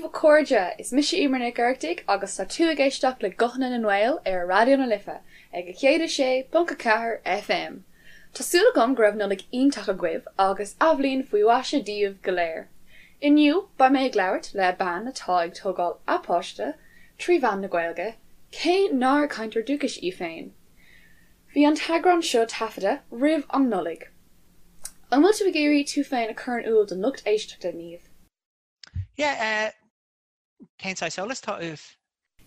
a chairde, is mise Emer Nic Oireachtaigh agus tá tú ag éisteacht le Guthanna na nGael ar Raidió na Life ag 106.4 FM. Tá súil agam go raibh Nollaig iontach agaibh agus athbhliain faoi mhaise daoibh go léir. Inniu beidh mé ag labhairt le bean atá ag tógáil a páiste trí mheán na Gaeilge, cé nár cainteoir dúchais í féin. Bhí an t-eagrán seo taifeadta roimh an Nollaig. An bhfuil tú ag iarraidh tú féin a chur in iúl don lucht éisteachta, Niamh? Yeah, eh, cén saghas eolas atá uait?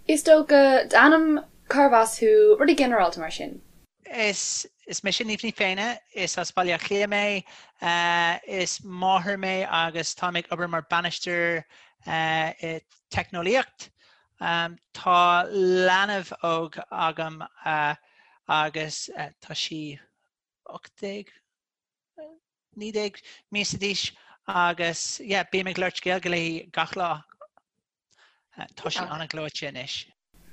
Is dócha, d'ainm, cárbh as thú, rudaí ginearálta mar sin. Is, is mise Niamh Ní Féinne, is as Baile Átha Cliath mé, eh, is máthair mé agus táim ag obair mar bainisteoir eh, i teicneolaíocht. Um, tá leanbh óg agam eh, agus eh, tá sí 18, 19 míosa d'aois agus yeah, bím ag labhairt Gaeilge léi gach lá. Tá sí an-ghleoite anois.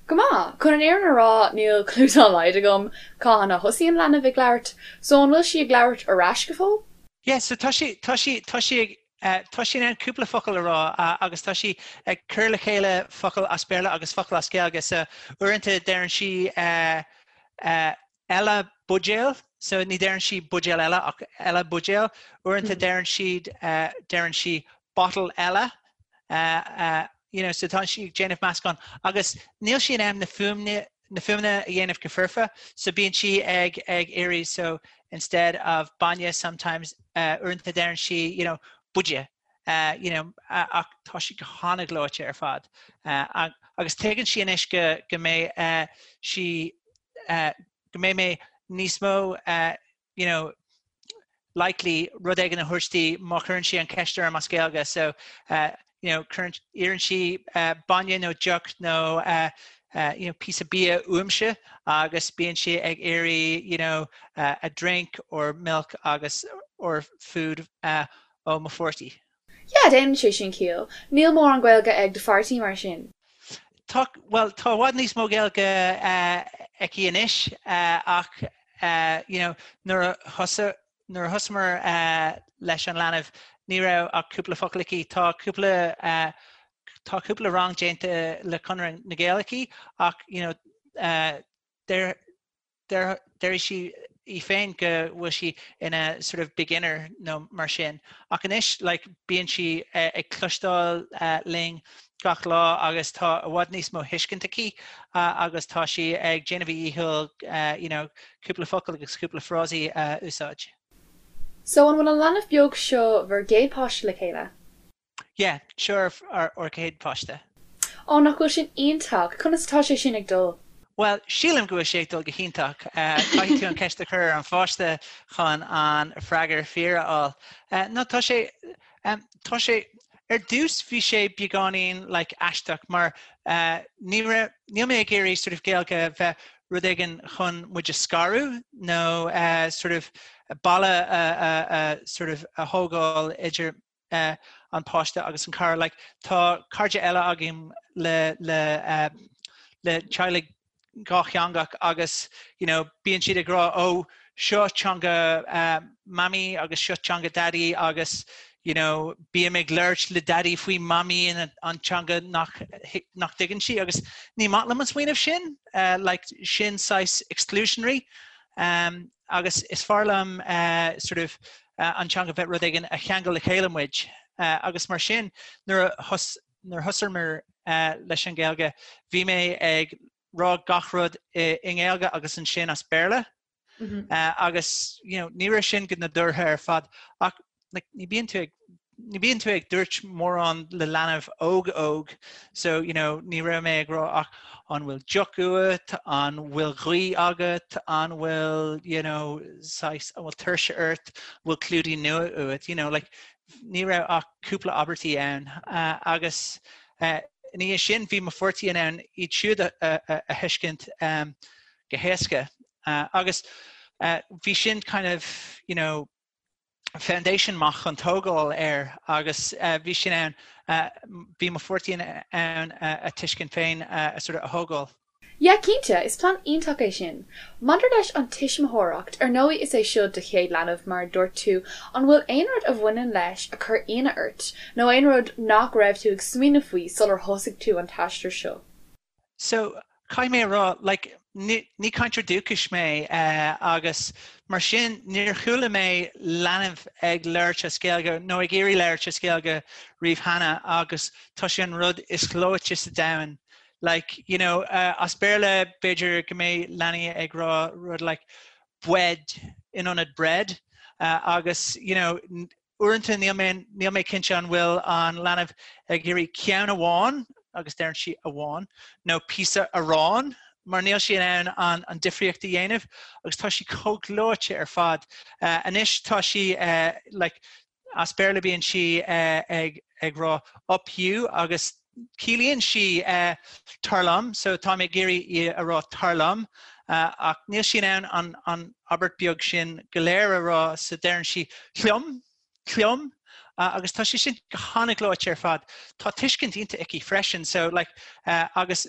Go maith! Chun an fhírinne a rá, níl clue dá laghad agam cathain a thosaíonn leanbh ag labhairt, so an bhfuil sí ag labhairt ar ais go fóill? Yeah, so tá sí, tá sí, tá sí ag, tá sí in ann cúpla focal a rá agus tá sí ag cur le chéile focail as Béarla agus focail as Gaeilge, so uaireanta deireann sí eile buidéal, so ní deireann sí buidéal eile ach eile buidéal. Uaireanta deireann siad, deireann sí bottle eile, you know, so tá sí ag déanamh meascán agus níl sí in ann na fuaimne, na fuaimeanna a dhéanamh go foirfe, so bíonn sí ag, ag iarraidh, so instead of bainne sometimes, uaireanta deireann sí, you know, buide, you know, ach tá sí go han-ghleoite ar fad. Agus tuigeann sí anois go, go mbeidh sí, go mbeidh mé níos mó you know, likely rud éigin a thabhairt di má chuireann sí an ceist orm as Gaeilge. So uh, you know, cuireann, iarrann sí uh, bainne nó deoch nó uh, uh, you know, píosa bia uaimse agus bíonn sí ag iarraidh you know, uh, a drink or milk agus or food uh, ó mo pháirtí. Yeah, déanann sé sin ciall. Níl mórán Gaeilge ag do pháirtí mar sin. Tá, bhuel, tá i bhfad níos mó Gaeilge aici anois ach you know, nuair a thosaigh, nuair a thosaíomar leis an leanbh ní raibh ach cúpla focal aici. Tá cúpla, tá cúpla rang déanta le Conradh na Gaeilge aici ach you know, deir, Déarfaidh sí í féin go bhfuil sí ina sort of beginner nó mar sin. Ach anois like bíonn sí ag cloisteáil linn gach lá agus tá i bhfad níos mó thuiscint aici agus tá sí ag déanamh a dhícheall you know cúpla focal agus cúpla frásaí a úsáid. So an bhfuil an leanbh beag seo bhur gcéad páiste le chéile? Yeah, seo ár gcéad pháiste. Ó, nach bhfuil sin iontach! Conas atá sé sin ag dul? Bhuel, sílim go bhfuil sé ag dul go hiontach. Caithfidh tú an ceist a chur ar an pháiste chun an freagar fíor a fháil. No, tá sé, tá sé, ar dtús bhí sé beagáinín like aisteach mar ní raibh, níl mé ag iarraidh sort of Gaeilge bheith rud éigin chun muid a scaradh nó sort of balla a sort of a thógáil idir an páiste agus an cara. Like, tá cairde eile againn le, le, uh, le teaghlaigh dhátheangach agus you know, bíonn siad ag rá ó seo teanga uh, mamaí agus seo teanga daddy agus you know, bím ag labhairt le daddy faoi mamaí in an teanga nach, nach dtuigeann sí agus ní maith liom an smaoineamh sin, uh, like, sin saghas exclusionary um, agus is fearr liom uh, sort of an teanga bheith rud éigin a cheangal le chéile muid agus mar sin nuair a thosaíomar leis an Ghaeilge bhí mé ag rá gach rud i nGaeilge agus ansin as Béarla agus you know ní raibh sin go nádúrtha ar fad ach like ní bíonn tú ag ní bíonn tú ag dúirt mórán le leanbh óg óg so you know ní raibh mé ag rá ach an bhfuil deoch uait, an bhfuil gaoth agat, an bhfuil you know saghas an bhfuil tuirse ort, an bhfuil clúidín nua uait, you know like ní raibh ach cúpla abairtí ann uh, agus uh, ina dhiaidh sin bhí mo pháirtí in ann iad siúd a, a, a, a thuiscint um, go héasca uh, agus uh, bhí sin kind of you know foundation maith chun tógáil air agus bhí sin ann, bhí mo pháirtí in ann a tuiscint féin a sort of a thógáil. Yeah, cinnte, is plean iontach é sin. Maidir leis an tuismitheoireacht, ar ndóigh is é seo do chéad leanbh mar a dúirt tú, an bhfuil aon rud a bhaineann leis a chuir ionadh ort, nó aon rud nach raibh tú ag smaoineamh faoi sular thosaigh tú an t-aistear seo? So, caithfidh mé a rá, like, ní, ní cainteoir dúchais mé agus mar sin níor chuala mé leanbh ag labhairt as Gaeilge nó ag iarraidh labhairt as Gaeilge riamh cheana agus tá sé an rud is gleoite sa domhan Like, you know, as Béarla b'fhéidir go mbeidh leanaí ag rá rud like bwead in ionad bread agus, you know, uaireanta níl mé, níl mé cinnte an bhfuil an leanbh ag iarraidh ceann amháin, agus deireann sí amháin, nó píosa aráin mar níl sí in ann an, an difríocht a dhéanamh agus tá sí chomh gleoite ar fad. Anois tá sí like, As Béarla bíonn sí ag rá up you agus ciallaíonn sí tar liom, so táim ag iarraidh í a rá tar liom ach níl sí in ann an abairt beag sin go léir a rá so deireann sí liom, liom agus tá sé sin go han-ghleoite ar fad. Tá tuiscint iontach aici freisin so like agus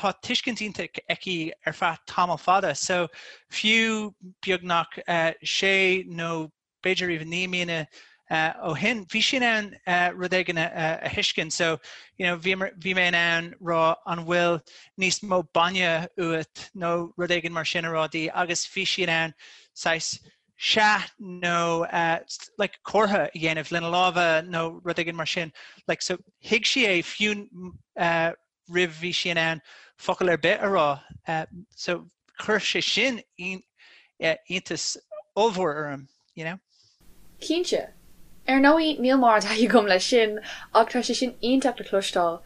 tá tuiscint iontach aici ar feadh tamall fada so fiú beagnach sé nó b'fhéidir even 9 míonna ó shin, bhí sí in ann rud éigin a thuiscint. So, you know, bhí, bhí mé in ann rá an bhfuil níos mó bainne uait nó rud éigin mar sin a rá di agus bhí sí in ann saghas sea nó uh, like, comhartha a dhéanamh lena lámha nó rud éigin mar sin. Like, so, thuig sí é fiú uh, roimh bhí sí in ann focal ar bith a rá. So chuir sé sin iontas ollmhór orm, you know. Cinnte. Ar ndóigh, níl mórán taithí agam leis sin, ach tá sé sin iontach le cloisteáil.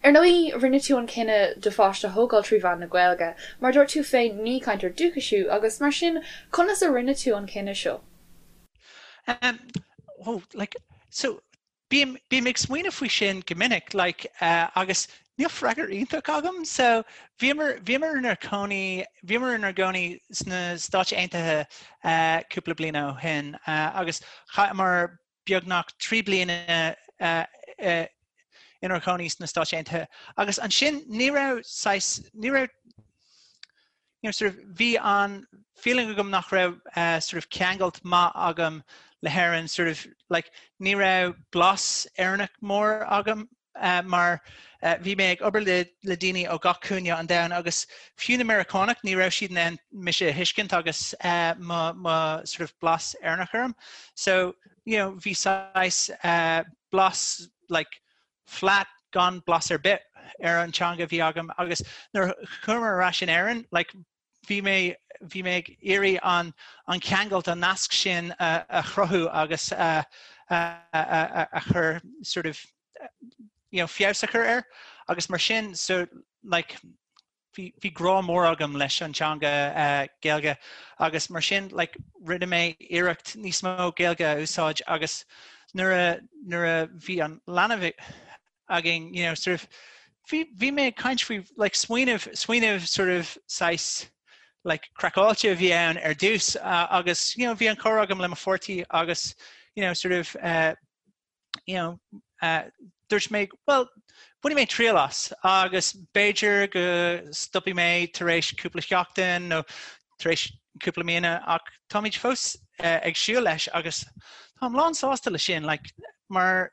Ar ndóigh, rinne tú an cinneadh do pháiste a thógáil trí mheán na Gaeilge. Mar a dúirt tú féin, ní cainteoir dúchais thú, agus mar sin, conas a rinne tú an cinneadh seo? Um, oh, like, so Bím, bím ag smaoineamh faoi sin go minic, like, agus níl freagra iontach agam. So, bhíomar, bhíomar inár cónaí, bhíomar inár gcónaí sna Stáit Aontaithe cúpla bliain ó shin agus chaitheamar beagnach 3 bliana inár gcónaí sna Stáit Aontaithe agus ansin ní raibh saghas, ní raibh, you know, sort of, bhí an feeling agam nach raibh uh, sort of ceangailt maith agam le hÉirinn, sort of, like, ní raibh blas Éireannach mór agam uh, mar uh, bhí mé ag obair le, le daoine ó gach cúinne an domhain agus fiú na Meiriceánaigh ní raibh siad in ann mise a thuiscint agus uh, mo, mo sort of blas Éireannach orm. So, you know, bhí saghas uh, blas like, flat gan blas ar bith ar an teanga a bhí agam agus nuair a chuamar ar ais in Éirinn like bhí mé bhí mé ag iarraidh an an ceangailt an nasc sin a, a chruthú agus a, a, a, a chur sort of you know, feabhas a chur air agus mar sin so like bhí bhí grá mór agam leis an teanga Gaeilge agus mar sin like rinne mé iarracht níos mó Gaeilge a úsáid agus nuair a nuair a bhí an leanbh againn you know sort of bhí bhí mé ag caint faoi like smaoineamh smaoineamh sort of saghas like craiceáilte a bhí ann ar dtús agus you know bhí an comhrá agam le mo pháirtí agus you know sort of uh, you know, uh, dúirt mé, well, bainfidh mé triail as agus b'fhéidir go stopfaidh mé tar éis cúpla seachtain nó tar éis cúpla míonna ach táimid fós uh, ag siúl leis agus táim lán sásta le sin like, mar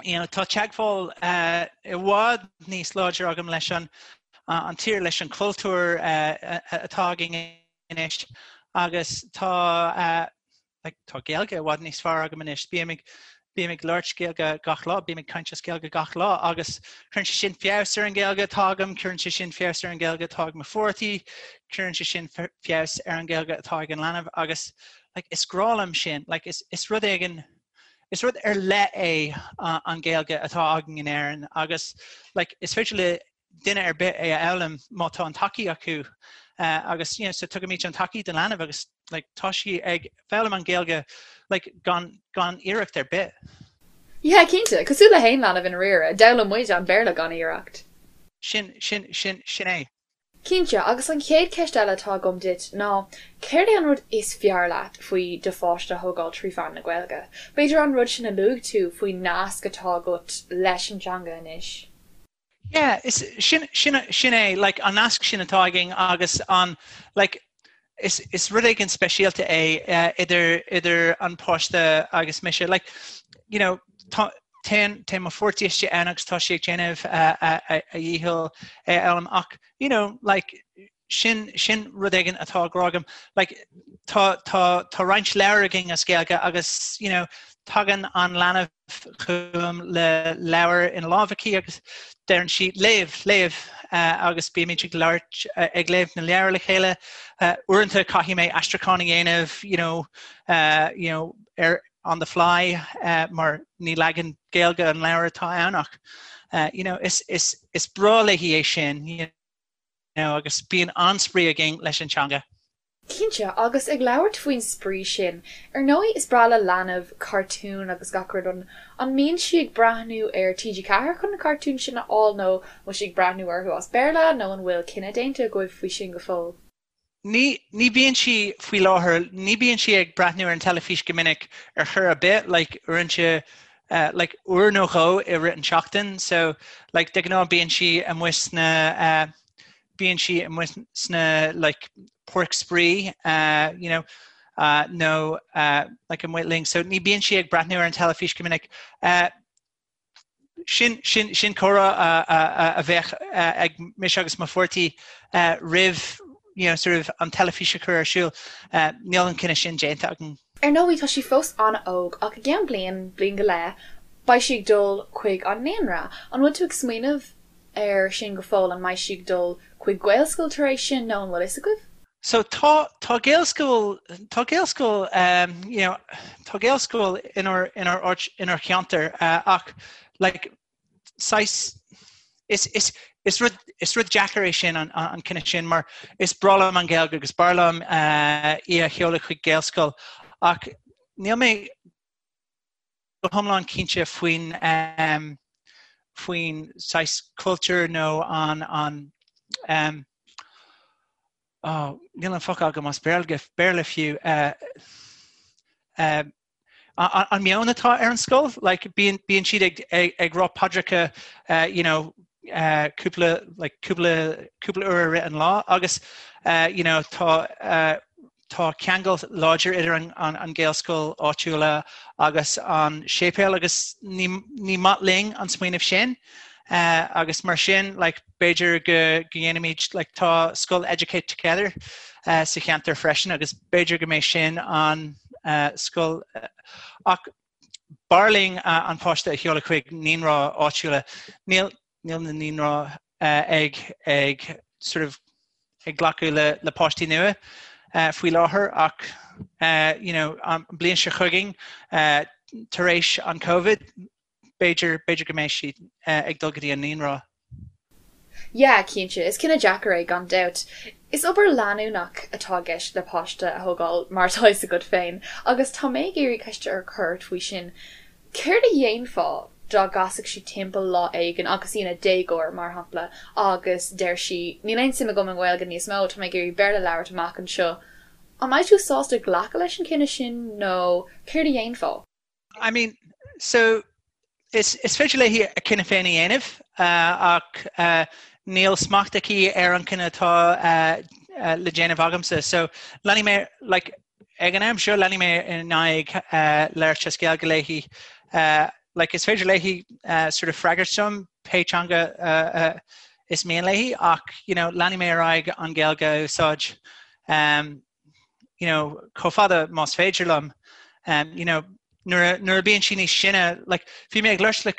you know, tá teagmháil uh, i bhfad níos láidre agam leis an, uh, an tír leis an cultúr uh, atá againn anois agus tá uh, like, tá Gaeilge i bhfad níos fearr agam anois. Bím ag, bím ag labhairt Gaeilge gach lá, bím ag caint as Gaeilge gach lá agus cuireann sé sin feabhas ar an Ghaeilge atá agam, cuireann sé sin feabhas ar an Ghaeilge atá ag mo pháirtí, cuireann sé sin feabhas ar an Ghaeilge atá ag an leanbh agus like, is grá liom sin, like, is, is rud éigin is rud ar leith é an Ghaeilge atá againn in Éirinn agus like, is féidir le duine ar bith é a fhoghlaim má tá an tacaí acu agus you know, so tugaimid an tacaí don leanbh agus like, tá sí ag foghlaim an Ghaeilge like, gan, gan iarracht ar bith. Yeah, cinnte, cosúil le haon leanbh i ndáiríre, d'fhoghlaim muid an Béarla gan iarracht. Sin, sin, sin, sin é. Cinnte, agus an chéad cheist eile atá agam duit ná, céard é an rud is fearr leat faoi do pháiste a thógáil trí mheán na Gaeilge? B'fhéidir an rud sin a luaigh tú faoin nasc atá agat leis an teanga anois? Yeah, is sin sin sin é like an nasc sin atá againn agus an like is is rud éigin speisialta é uh, idir idir an páiste agus mise like you know tá téann téann mo pháirtí istigh ann agus tá sí ag déanamh uh, a, a, a dhícheall é a fhoghlaim ach you know like sin sin rud éigin atá grá agam. Like, tá tá tá roinnt leabhar againn as Gaeilge agus you know, tagann an leanbh chugam le leabhar ina lámh aici agus deireann sí léamh léamh uh, agus bímid ag labhairt uh, ag léamh na leabhar le chéile. Uh, uaireanta caithfidh mé aistriúchán a dhéanamh you know, uh, you know, ar on the fly uh, mar ní leagan Gaeilge an leabhar atá ann ach uh, you know, is, is, is breá léi é sin you know, agus bíonn an-spraoi againn leis an teanga. Cinnte, agus ag labhairt faoin spraoi sin, ar ndóigh is breá le leanbh cartúin agus gach rud, an an mbíonn sí ag breathnú ar TG4 chun na cartúin sin a fháil nó an bhfuil sí ag breathnú orthu as Béarla nó an bhfuil cinneadh déanta agaibh faoi sin go fóill? Ní, ní bíonn sí faoi láthair, ní bíonn sí ag breathnú ar an teilifís go minic ar chor ar bith, like uaireanta, uh, like uair nó dhó i rith an tseachtain, so like de ghnáth bíonn sí amuigh sna, uh, bíonn sí amuigh sna like páirc spraoi, uh, you know, uh, nó uh, like amuigh linn, so ní bíonn sí ag breathnú ar an teilifís go minic. Uh, sin, sin, sin comhrá a, a, a, a bheadh uh, ag mise agus mo pháirtí uh, roimh you know, sort of an teilifís a chur ar siúl. Uh, níl an cinneadh sin déanta againn. Ar ndóigh, tá sí fós an-óg ach i gceann bliain, bliain go leith, beidh sí ag dul chuig an naíonra. An bhfuil tú ag smaoineamh air sin go fóill, an mbeidh sí ag dul chuig Gaelscoil tar éis sin nó an bhfuil fhios agaibh? So tá tá Gaelscoil tá Gaelscoil um, you know, tá Gaelscoil inár inár áit inár cheantar uh, ach like saghas is is is rud is rud deacair é sin an an cinneadh sin mar is breá liom an Ghaeilge agus b'fhearr liom uh, í a sheoladh chuig Gaelscoil ach níl mé go hiomlán cinnte faoin um, faoin saghas cultúr nó an an um, oh, níl an focal agam as Béarla, Béarla fiú uh, uh, an meon atá ar an scoil, like, bíonn, bíonn siad ag, ag, ag rá paidreacha uh, you know, uh, cúpla, like, cúpla, cúpla uair i rith an lá agus uh, you know, tá uh, Tá ceangal láidir idir an Ghaelscoil áitiúla agus an séipéal agus ní ní maith linn an smaoineamh sin agus mar sin like b'fhéidir go ndéanfaimid like tá scoil Educate Together sa cheantar freisin agus b'fhéidir go mbeidh sin an scoil ach b'fhearr linn an páiste a sheoladh chuig naíonra áitiúla. Níl níl na naíonra ag ag sort of ag glacadh le le páistí nua faoi láthair ach you know an bliain seo chugainn tar éis an Covid b'fhéidir b'fhéidir go mbeidh sí ag dul go dtí an naíonra. Yeah, cinnte, is cinneadh deacair é gan dabht. Is obair leanúnach atá i gceist le páiste a thógáil mar atá fhios agat féin agus tá mé ag iarraidh ceist a chur ort faoi sin. Céard a dhéanfá dá gcasfadh sí timpeall lá éigin agus í ina déagóir, mar shampla, agus deir sí, 'Níl aon suim agam i nGaeilge níos mó, tá mé ag iarraidh Béarla a labhairt amach anseo'. An mbeidh tú sásta glacadh leis an chinneadh sin nó céard a dhéanfá? I mean, so is, is féidir léi a cinneadh féin a dhéanamh ach níl smacht aici ar an cinneadh atá le déanamh agamsa. So leanfaidh mé, like, Ag an am seo leanfaidh mé in aghaidh labhairt as Gaeilge léi. Like is féidir léi sort of freagairt dom pé teanga is mian léi ach you know leanfaidh mé ar aghaidh an Ghaeilge a úsáid um, you know chomh fada más féidir liom. Um, you know nuair nuair a bíonn sí níos sine like bhí mé ag labhairt le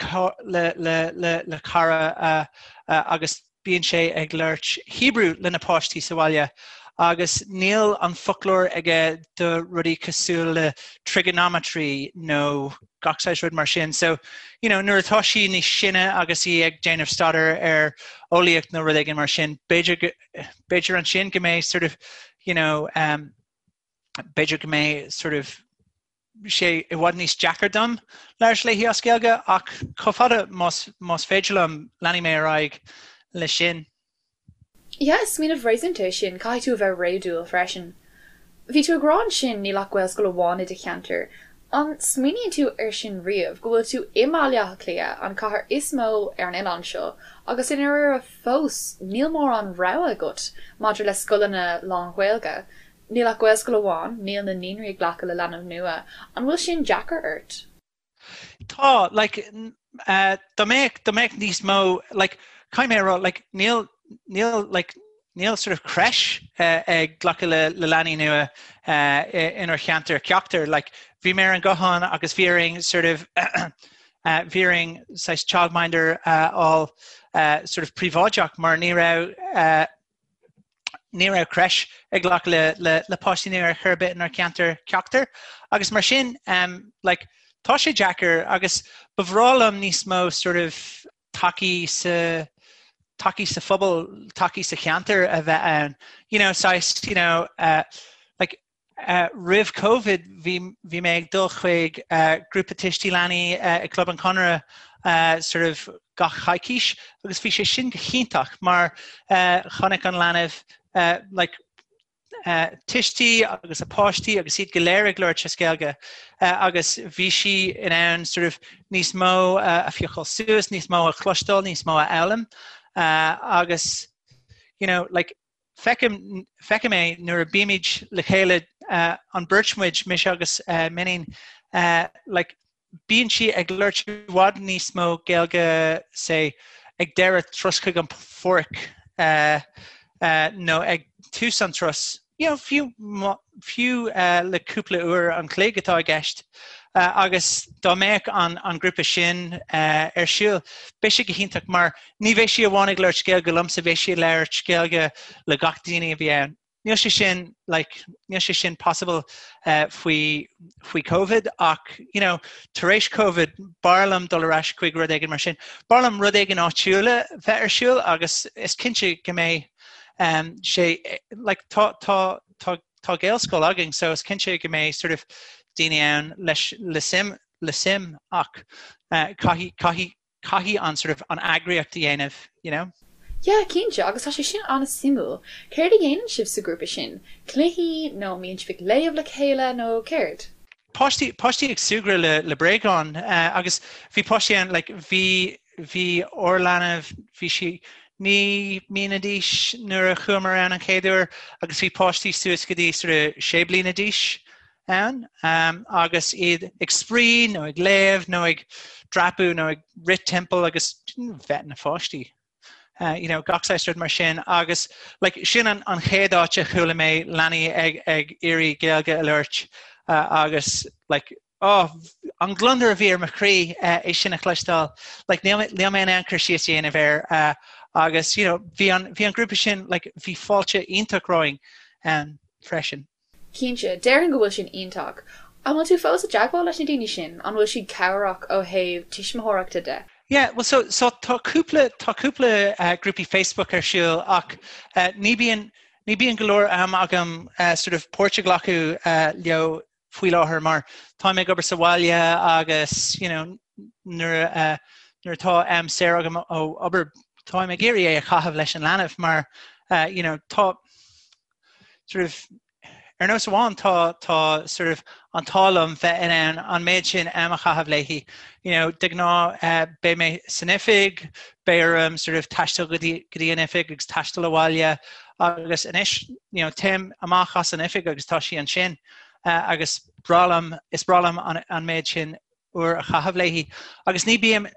le le le le cara uh, uh, agus Bíonn sé ag labhairt Hebrew lena páistí sa bhaile agus níl an foclóir aige do rudaí cosúil le trigonometry nó gach saghas rud mar sin. So, you know, nuair atá sí níos sine agus í ag déanamh staidéar ar eolaíocht nó rud éigin mar sin, b'fhéidir b'fhéidir ansin go mbeidh sort of, you know, um, b'fhéidir go mbeidh sort of sé i bhfad níos deacair dom labhairt léi as Gaeilge ach chomh fada más, más féidir liom leanfaidh mé ar aghaidh leis sin. Yeah, is smaoineamh réasúnta é sin, caithfidh tú a bheith réadúil freisin. Bhí tú ag rá ansin níl ach Gaelscoil amháin i do cheantar. An smaoiníonn tú air sin riamh, go bhfuil tú i mBaile Átha Cliath, an cathair is mó ar an oileán seo, agus i ndáiríre fós níl mórán rogha agat maidir le scoileanna lán-Ghaeilge. Níl ach Gaelscoil amháin, níl na naíonraí ag glacadh le leanbh nua. An bhfuil sin deacair ort? Tá, like, dá mbeadh, dá mbeadh níos mó, like, caithfidh mé a rá, like, níl, níl, like, níl sort of creche ag glacadh le, le leanaí nua inár cheantar ceachtar. Like, bhí mé ar an guthán agus bhí orainn sort of bhí orainn saghas childminder a fháil sort of príobháideach mar ní raibh ní raibh creche ag glacadh le, le, le páistí nua ar chor ar bith inár ceantar ceachtar. Agus mar sin, um, like, tá sé deacair agus ba bhreá liom níos mó sort of tacaí sa tacaí sa phobal, tacaí sa cheantar a bheith ann. You know, saghas, you know, uh, like, uh, roimh Covid bhí, bhí mé ag dul chuig uh, grúpa tuistí leanaí uh, ag Club an Chonartha uh, sort of gach coicís agus bhí sé sin go hiontach mar uh, chonaic an leanbh uh, like, uh, tuistí agus a páistí agus iad go léir ag labhairt as Gaeilge uh, agus bhí sí in ann sort of níos mó uh, a phiocáil suas, níos mó a chloisteáil, níos mó a fhoghlaim uh, agus you know, like, feicim, feicim é nuair a bímid le chéile uh, an beirt muid, mise agus uh, m'iníon, uh, like, bíonn sí ag labhairt i bhfad níos mó Gaeilge say ag deireadh turas chuig an pháirc nó ag tús an turas, you know, fiú fiú le cúpla uair an chloig atá i gceist. Agus dá mbeadh an an grúpa sin ar siúl, beidh sé go hiontach mar ní bheidh sí amháin ag labhairt Gaeilge liomsa, beidh sí ag labhairt Gaeilge le gach daoine a bhí ann. Níl sé sin like níl sé sin possible uh, faoi faoi Covid ach you know, tar éis Covid b'fhearr liom dul ar ais chuig rud éigin mar sin. B'fhearr liom rud éigin áitiúil a bheith ar siúl agus is cinnte go mbeidh um, sé like, tá, tá, tá, tá Gaelscoil againn so is cinnte go mbeidh sort of daoine ann leis le suim le suim ach uh, caithfidh caithfidh caithfidh an sort of an eagraíocht a dhéanamh, you know. Yeah, cinnte, agus tá sé sin an-suimiúil. Céard a dhéanann sibh sa ghrúpa sin? Cluichí nó an mbíonn sibh ag léamh le chéile nó céard? Páistí, páistí ag súgradh le, le bréagáin agus bhí páistí ann, like, bhí, bhí ár leanbh, bhí sí 9 mbliana d'aois nuair a chuamar ann an chéad uair agus bhí páistí suas go dtí sort of 6 bliana d'aois ann agus iad ag spraoi nó ag léamh nó ag dreapadh nó ag rith timpeall agus bheith ina pháistí. Uh, you know, gach saghas rud mar sin agus like, sin an, an chéad áit a chuala mé leanaí ag, ag iarraidh Gaeilge a labhairt uh, agus like, oh, an gliondar a bhí ar mo chroí uh, é sin a chloisteáil. Like, níl, níl mé in ann cur síos a dhéanamh air uh, agus you know, bhí an, bhí an grúpa sin like, bhí fáilte iontach romhainn um, freisin. Cinnte, déarfainn go bhfuil sin iontach. An bhfuil tú fós i dteagmháil leis na daoine sin? An bhfuil siad cabhrach ó thaobh tuismitheoireachta de? Yeah, well so, so tá cúpla, tá cúpla uh, grúpaí Facebook ar siúl ach uh, ní bíonn, ní bíonn go leor am agam uh, sort of páirt a ghlacadh uh, leo faoi láthair mar táim ag obair sa bhaile agus you know, nuair, uh, nuair atá am saor agam ó obair táim ag iarraidh é a chaitheamh leis an leanbh mar uh, you know, tá sort of ar nós amháin tá tá sort of an t-ádh liom bheith in ann an méid sin am a chaitheamh léi. You know, de ghnáth uh, beidh mé san oifig, beidh orm sort of taisteal go dtí go dtí an oifig agus taisteal abhaile agus anois you know, téim amach as an oifig agus tá sí ansin uh, agus breá liom is breá liom an, an méid sin uair a chaitheamh léi. Agus ní bím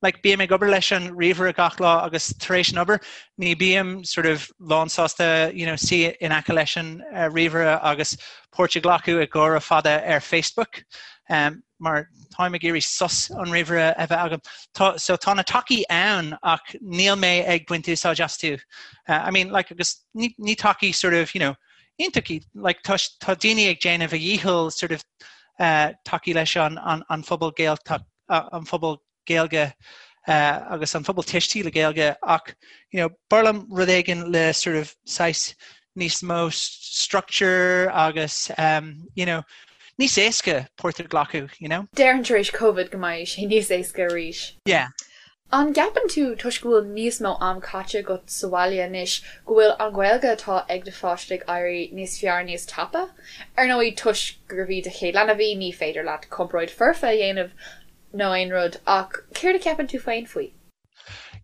like bím ag obair leis an ríomhaire gach lá agus tar éis an obair ní bím sort of lán sásta you know, suí in aice leis an uh, ríomhaire agus páirt a ghlacadh i gcomhrá fada ar Facebook um, mar táim ag iarraidh sos an ríomhaire a bheith agam. Tá, so tá na tacaí ann ach níl mé ag baint úsáid astu. Uh, I mean, like, agus ní, ní tacaí sort of, you know, iontacha, like, tá, tá daoine ag déanamh a dhícheall sort of uh, tacú leis an, an, an phobal Gaeltacht an phobal Gaeilge agus an phobal tuistí le Gaeilge ach you know, b'fhearr liom rud éigin le sort of saghas níos mó structure agus um, you know, níos éasca páirt a ghlacadh, you know. Déarfainn tar éis Covid go mbeidh sé níos éasca arís. Yeah. An gceapann tú, toisc go bhfuil níos mó am caite agat sa bhaile anois, go bhfuil an Ghaeilge atá ag do pháiste ag éirí níos fearr níos tapa? Ar ndóigh, toisc gurbh í do chéad leanbh í, ní féidir leat comparáid foirfe a dhéanamh nó aon rud, ach céard a cheapann tú féin faoi?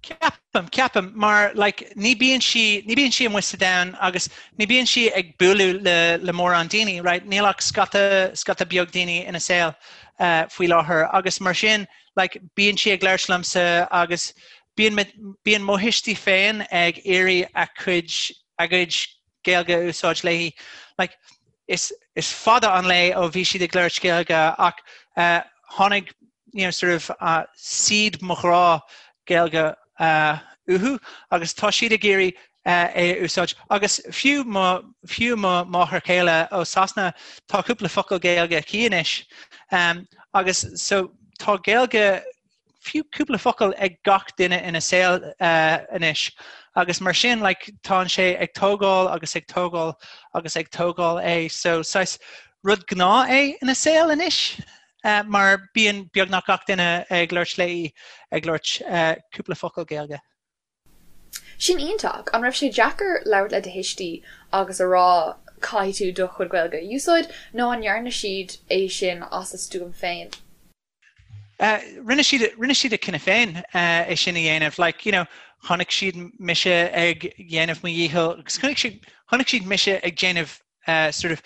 Ceapaim, ceapaim, mar like ní bíonn sí, ní bíonn sí amuigh sa domhan agus ní bíonn sí ag bualadh le, le mórán daoine, right? Níl ach scata, scata beag daoine ina saol uh, faoi láthair agus mar sin, like bíonn sí ag labhairt liomsa agus bíonn bíonn mo thuistí féin ag iarraidh a cuid a gcuid Gaeilge a úsáid léi. Like is is fada an lá ó bhí siad ag labhairt Gaeilge ach uh, tháinig you know, sort of uh, seed mo ghrá Gaeilge uh, uathu agus tá siad ag iarraidh é a úsáid. Agus fiú mo, fiú mo mháthair chéile ó Sasana, tá cúpla focal Gaeilge aici anois. Um, agus so tá Gaeilge fiú cúpla focal ag gach duine ina saol uh, anois. Agus mar sin like, tá sé ag tógáil agus ag tógáil agus ag tógáil é. So saghas rud gnáth é ina saol anois. Uh, mar bíonn beagnach gach duine ag labhairt léi ag labhairt uh, cúpla focal Gaeilge. Sin iontach! An raibh sé deacair labhairt le do thuistí agus a rá caithfidh tú do chuid Gaeilge a úsáid nó an ndearna siad é sin as a stuaim féin? Rinne siad, rinne siad a cinneadh féin é sin a dhéanamh. Like, you know, chonaic siad mise ag dhéanamh mo dhícheall agus chonaic siad, chonaic siad mise ag déanamh sort of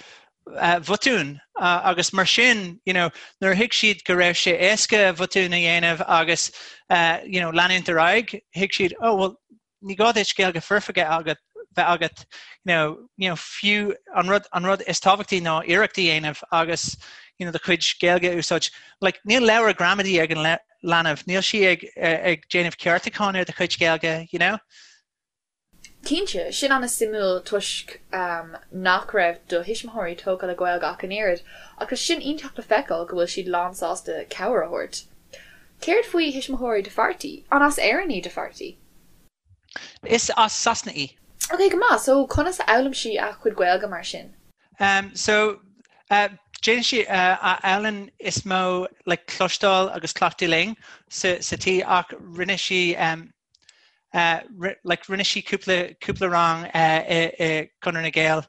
botúin agus mar sin you know, nuair a thuig siad go raibh sé éasca botún a dhéanamh agus you know, leanúint ar aghaidh, thuig siad oh well ní gá duit Gaeilge foirfe agat bheith agat you know, you know, fiú an rud, an rud is tábhachtaí ná iarracht a dhéanamh agus you know, do chuid Gaeilge a úsáid. Like, níl leabhar gramadaí ag an leanbh, níl sí ag, ag déanamh ceartúcháin ar do chuid Gaeilge, you know? Cinnte, sin an-suimiúil toisc nach raibh do thuismitheoirí tógtha le Gaeilge ach an oiread, ach tá sin iontach le feiceáil go bhfuil siad lán sásta cabhair a thabhairt. Céard faoi thuismitheoirí do pháirtí? An as Éirinn í do pháirtí? Is as Sasana í. Ok, go maith. So, conas a fhoghlaim sí a cuid Gaeilge mar sin? Um, so, uh, déanann sí uh, a fhoghlaim is mó like, cloisteáil agus cleachtadh linn sa, sa tí ach rinne sí um, like rinne sí cúpla cúpla rang i i Conradh na Gael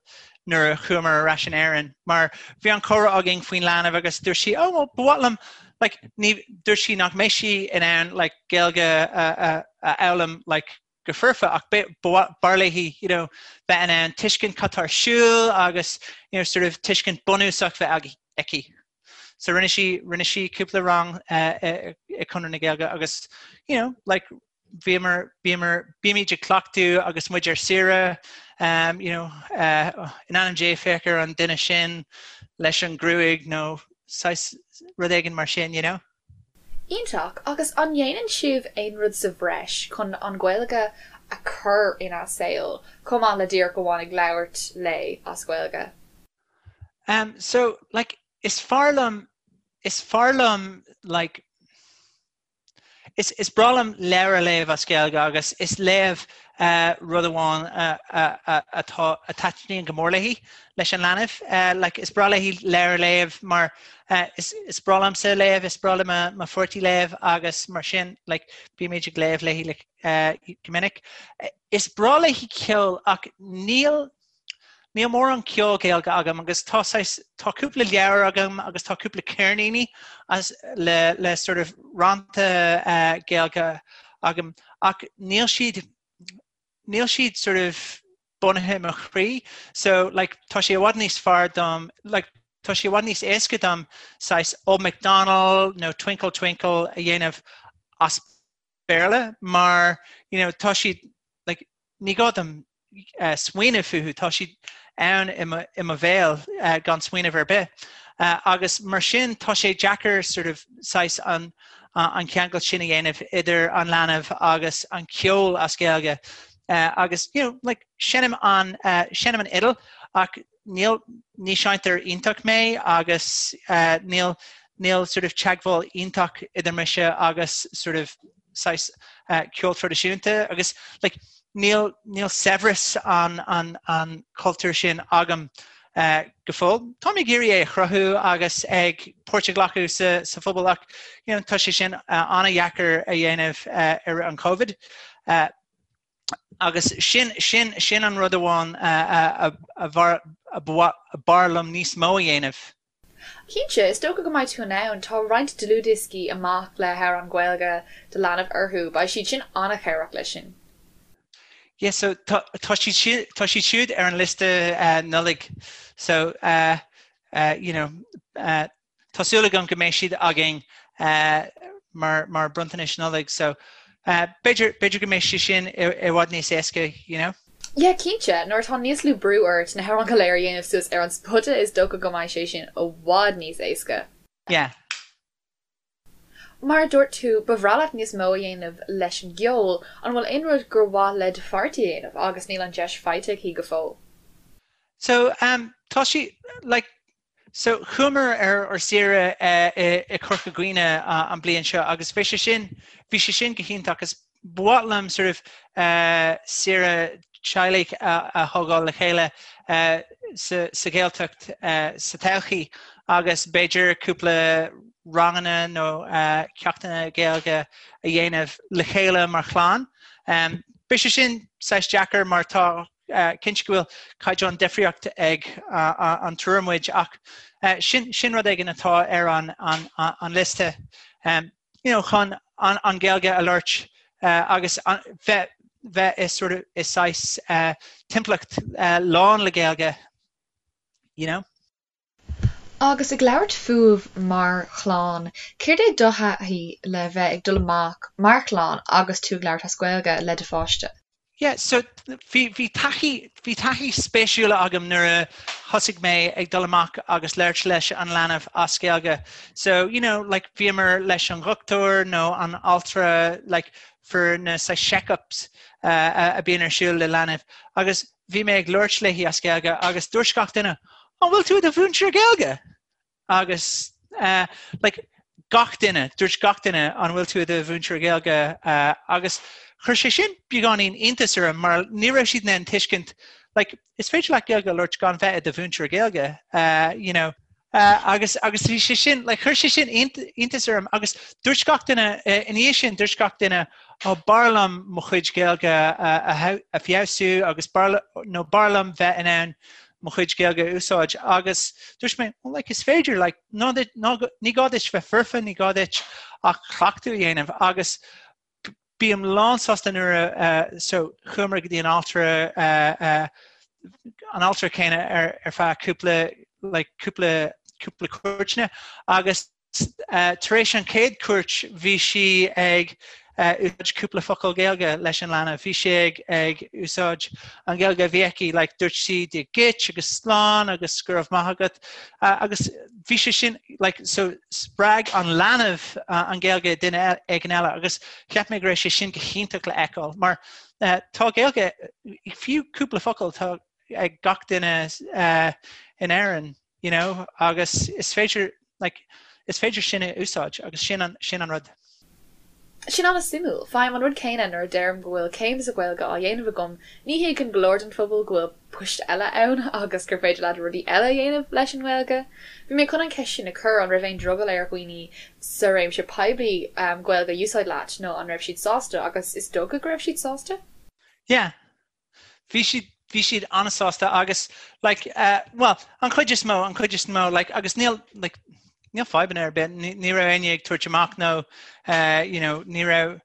nuair a chuamar ar ais in Éirinn mar bhí an comhrá againn faoin leanbh agus dúirt sí oh well ba mhaith liom like ní dúirt sí nach mbeidh sí in ann like Gaeilge a a a fhoghlaim like go foirfe ach b'fhearr léi you know bheith in ann tuiscint cad tá ar siúl agus you know sort of tuiscint bunúsach bheith aici. So rinne sí rinne sí cúpla rang i Conradh na Gaeilge agus you know like bhíomar bhíomar bímid ag cleachtadh agus muid ar saoire um, you know uh, in ainm Dé féach ar an duine sin leis an gruaig nó saghas rud éigin mar sin you know. Iontach! Agus an ndéanann sibh aon rud sa bhreis chun an Ghaeilge a chur ina saol, chomh maith le díreach amháin ag labhairt léi as Gaeilge? Um, so, like, is fearr liom, is fearr liom, like, is, is breá liom leabhar a léamh as Gaeilge agus is léamh uh, rud amháin uh, uh, uh, atá a taitníonn go mór léi leis an leanbh. Uh, like, is breá léi leabhar a léamh mar uh, is, is breá liomsa léamh, is breá le mo, mo pháirtí léamh agus mar sin like, bímid ag léamh léi like, uh, go minic. Is breá léi ceol ach níl Níl mórán ceol Gaeilge agam agus tá saghas, tá cúpla leabhar agam agus tá cúpla ceirníní as, le, le sort of rannta uh, Gaeilge agam ach níl siad, níl siad sort of bunaithe i mo chroí so like tá sé i bhfad níos fearr dom like tá sé i bhfad níos éasca dom saghas Old MacDonald nó Twinkle Twinkle a dhéanamh as Béarla mar you know tá siad like ní gá dom uh, smaoineamh fúthu, tá siad ann i mo, i mo bhéal uh, gan smaoineamh ar bith. Uh, agus mar sin tá sé deacair sort of saghas an, uh, an ceangal sin a dhéanamh idir an leanbh agus an ceol as Gaeilge. Uh, agus you know, like, seinnim an, uh, seinnim an fhidil ach níl, ní seinnteoir iontach mé agus uh, níl, níl sort of teagmháil iontach idir mise agus sort of saghas uh, ceol traidisiúnta agus like, níl, níl saibhreas an, an, an cultúr sin agam. go fóill. Táim ag iarraidh é a chruthú agus ag páirt a ghlacadh sa sa phobal ach you know, tá sé sin an-dheacair a dhéanamh i rith an Covid. Agus sin sin sin an rud amháin a b'fhearr liom níos mó a dhéanamh. Cinnte, is dócha go mbeidh tú in ann. Tá roinnt dlúthdhioscaí amach le hamhráin Ghaeilge do leanbh orthu. Beidh siad sin an-chabhrach leis sin. Yeah, so tá tá siad tá siad siúd ar an liosta Nollaig. So you know tá súil agam go mbeidh siad againn mar mar bronntanais Nollag. So b'fhéidir b'fhéidir go mbeidh sé sin i bhfad níos éasca, you know. Yeah, cinnte, nuair atá níos lú brú ort na hamhráin go léir a dhéanamh suas ar an spota is dócha go mbeidh sé sin i bhfad níos éasca. Yeah. Mar a dúirt tú, ba bhreá leat níos mó a dhéanamh leis an gceol, an bhfuil aon rud gur mhaith le do pháirtí a dhéanamh agus níl an deis faighte aici go fóill? So, um, tá sí, like, So, chuamar ar ár saoire i Corca Dhuibhne an bliain seo agus bhí sé sin, bhí sé sin go hiontach agus ba mhaith liom sort of saoire teaghlaigh a thógáil le chéile sa sa Ghaeltacht sa todhchaí agus b'fhéidir cúpla ranganna nó ceachtanna Gaeilge a dhéanamh le chéile mar chlann. Beidh sé sin saghas deacair mar tá Cinnte go bhfuil caighdeán difríocht ag an triúr muid ach sin sin rud éigin atá ar an an liosta you know chun an an Ghaeilge a labhairt agus bheith bheith i sort of i saghas timpeallacht lán le Gaeilge you know. Agus ag labhairt fúibh mar chlann, céard é do thaithí le bheith ag dul amach mar chlann agus tú ag labhairt as Gaeilge le do pháiste? Yeah, so bhí, bhí taithí, bhí taithí spéisiúla agam nuair a thosaigh mé ag dul amach agus labhairt leis an leanbh as Gaeilge. So, you know, like bhíomar leis an dhochtúir nó an altra like for na saghas check-ups uh, a bhíonn ar siúl le leanbh agus bhí mé ag labhairt léi as Gaeilge agus dúirt gach duine, An bhfuil tú i do mhúinteoir Gaeilge? Agus uh, like, gach duine, dúirt gach duine an bhfuil tú i do mhúinteoir Gaeilge uh, agus chuir sé sin beagáinín iontas orm mar ní raibh siad in ann tuiscint like, is féidir leat Gaeilge a labhairt gan bheith i do mhúinteoir Gaeilge, uh, you know, Uh, agus agus bhí sé sin like, chuir sé sin iontas orm agus dúirt gach duine uh, ina dhiaidh sin dúirt gach duine ó b'fhearr liom mo chuid Gaeilge a, a feabhsú agus b'fhearr nó b'fhearr liom bheith in ann mo chuid Gaeilge a úsáid agus dúirt mé well, like, is féidir like, ná, ná, ní gá duit bheith foirfe ní gá duit ach cleachtadh a dhéanamh agus Bím lánsásta nuair a so chuamar go dtí an altra an altra céanna ar ar feadh cúpla like cúpla cúpla cuairteanna agus tar éis an chéad cuairt bhí sí ag úsáid cúpla focal Gaeilge leis an leanbh. Bhí sí ag ag úsáid an Ghaeilge a bhí aici like dúirt sí Dia duit agus slán agus go raibh maith agat agus bhí sé sin like so spreag an leanbh an Ghaeilge duine éigin eile agus cheap mé go raibh sé sin go hiontach le fheiceáil mar tá Gaeilge fiú cúpla focal tá ag gach duine in Éirinn you know agus is féidir like is féidir sin a úsáid agus sin an sin an rud. Sin an-suimiúil. Faighim an rud céanna nuair a deirim go bhfuil céim sa Ghaeilge á dhéanamh agam, ní thuigeann go leor den phobal go bhfuil poist eile ann agus gur féidir leat rudaí eile a dhéanamh leis an nGaeilge. Bhí mé chun an cheist sin a chur, an raibh aon drogall ar dhaoine sa réimse poiblí Gaeilge a úsáid leat nó an raibh siad sásta agus is dócha go raibh siad sásta? Yeah. Bhí siad, bhí siad an-sásta agus like eh bhuel an chuid is mó, an chuid is mó like agus níl like níl fadhbanna ar bith, ní, ní raibh éinne ag tabhairt amach nó eh you know ní raibh,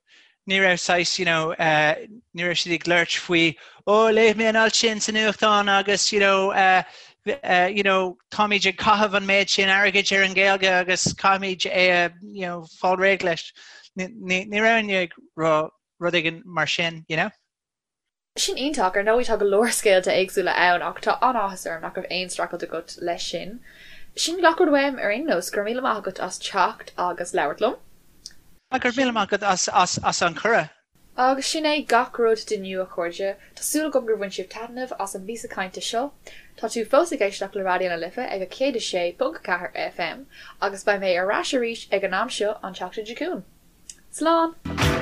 ní raibh saghas you know eh ní raibh siad ag labhairt faoi ó léigh mé an alt sin sa nuachtán agus you know eh eh you know táimid ag caitheamh an méid sin airgid ar an Ghaeilge agus caithfimid é a you know fáil réidh leis. Ní, ní, ní raibh éinne ag rá rud éigin mar sin, you know. Sin iontach, ar ndóigh tá go leor scéalta éagsúla ann ach tá an-áthas orm nach raibh aon streachailt agat leis sin. Sin gach rud uaim ar aon nós, go raibh míle maith agat as teacht agus labhairt liom. Go raibh míle maith agat as an cuireadh. Agus sin é gach rud d'inniu a chairde, tá súil agam gur bhain sibh taitneamh as an bpíosa cainte seo. Tá tú fós ag éisteacht le Raidió na Life ag 106.4 FM agus beidh mé ar ais arís ag an am seo an tseachtain seo chugainn. Slán!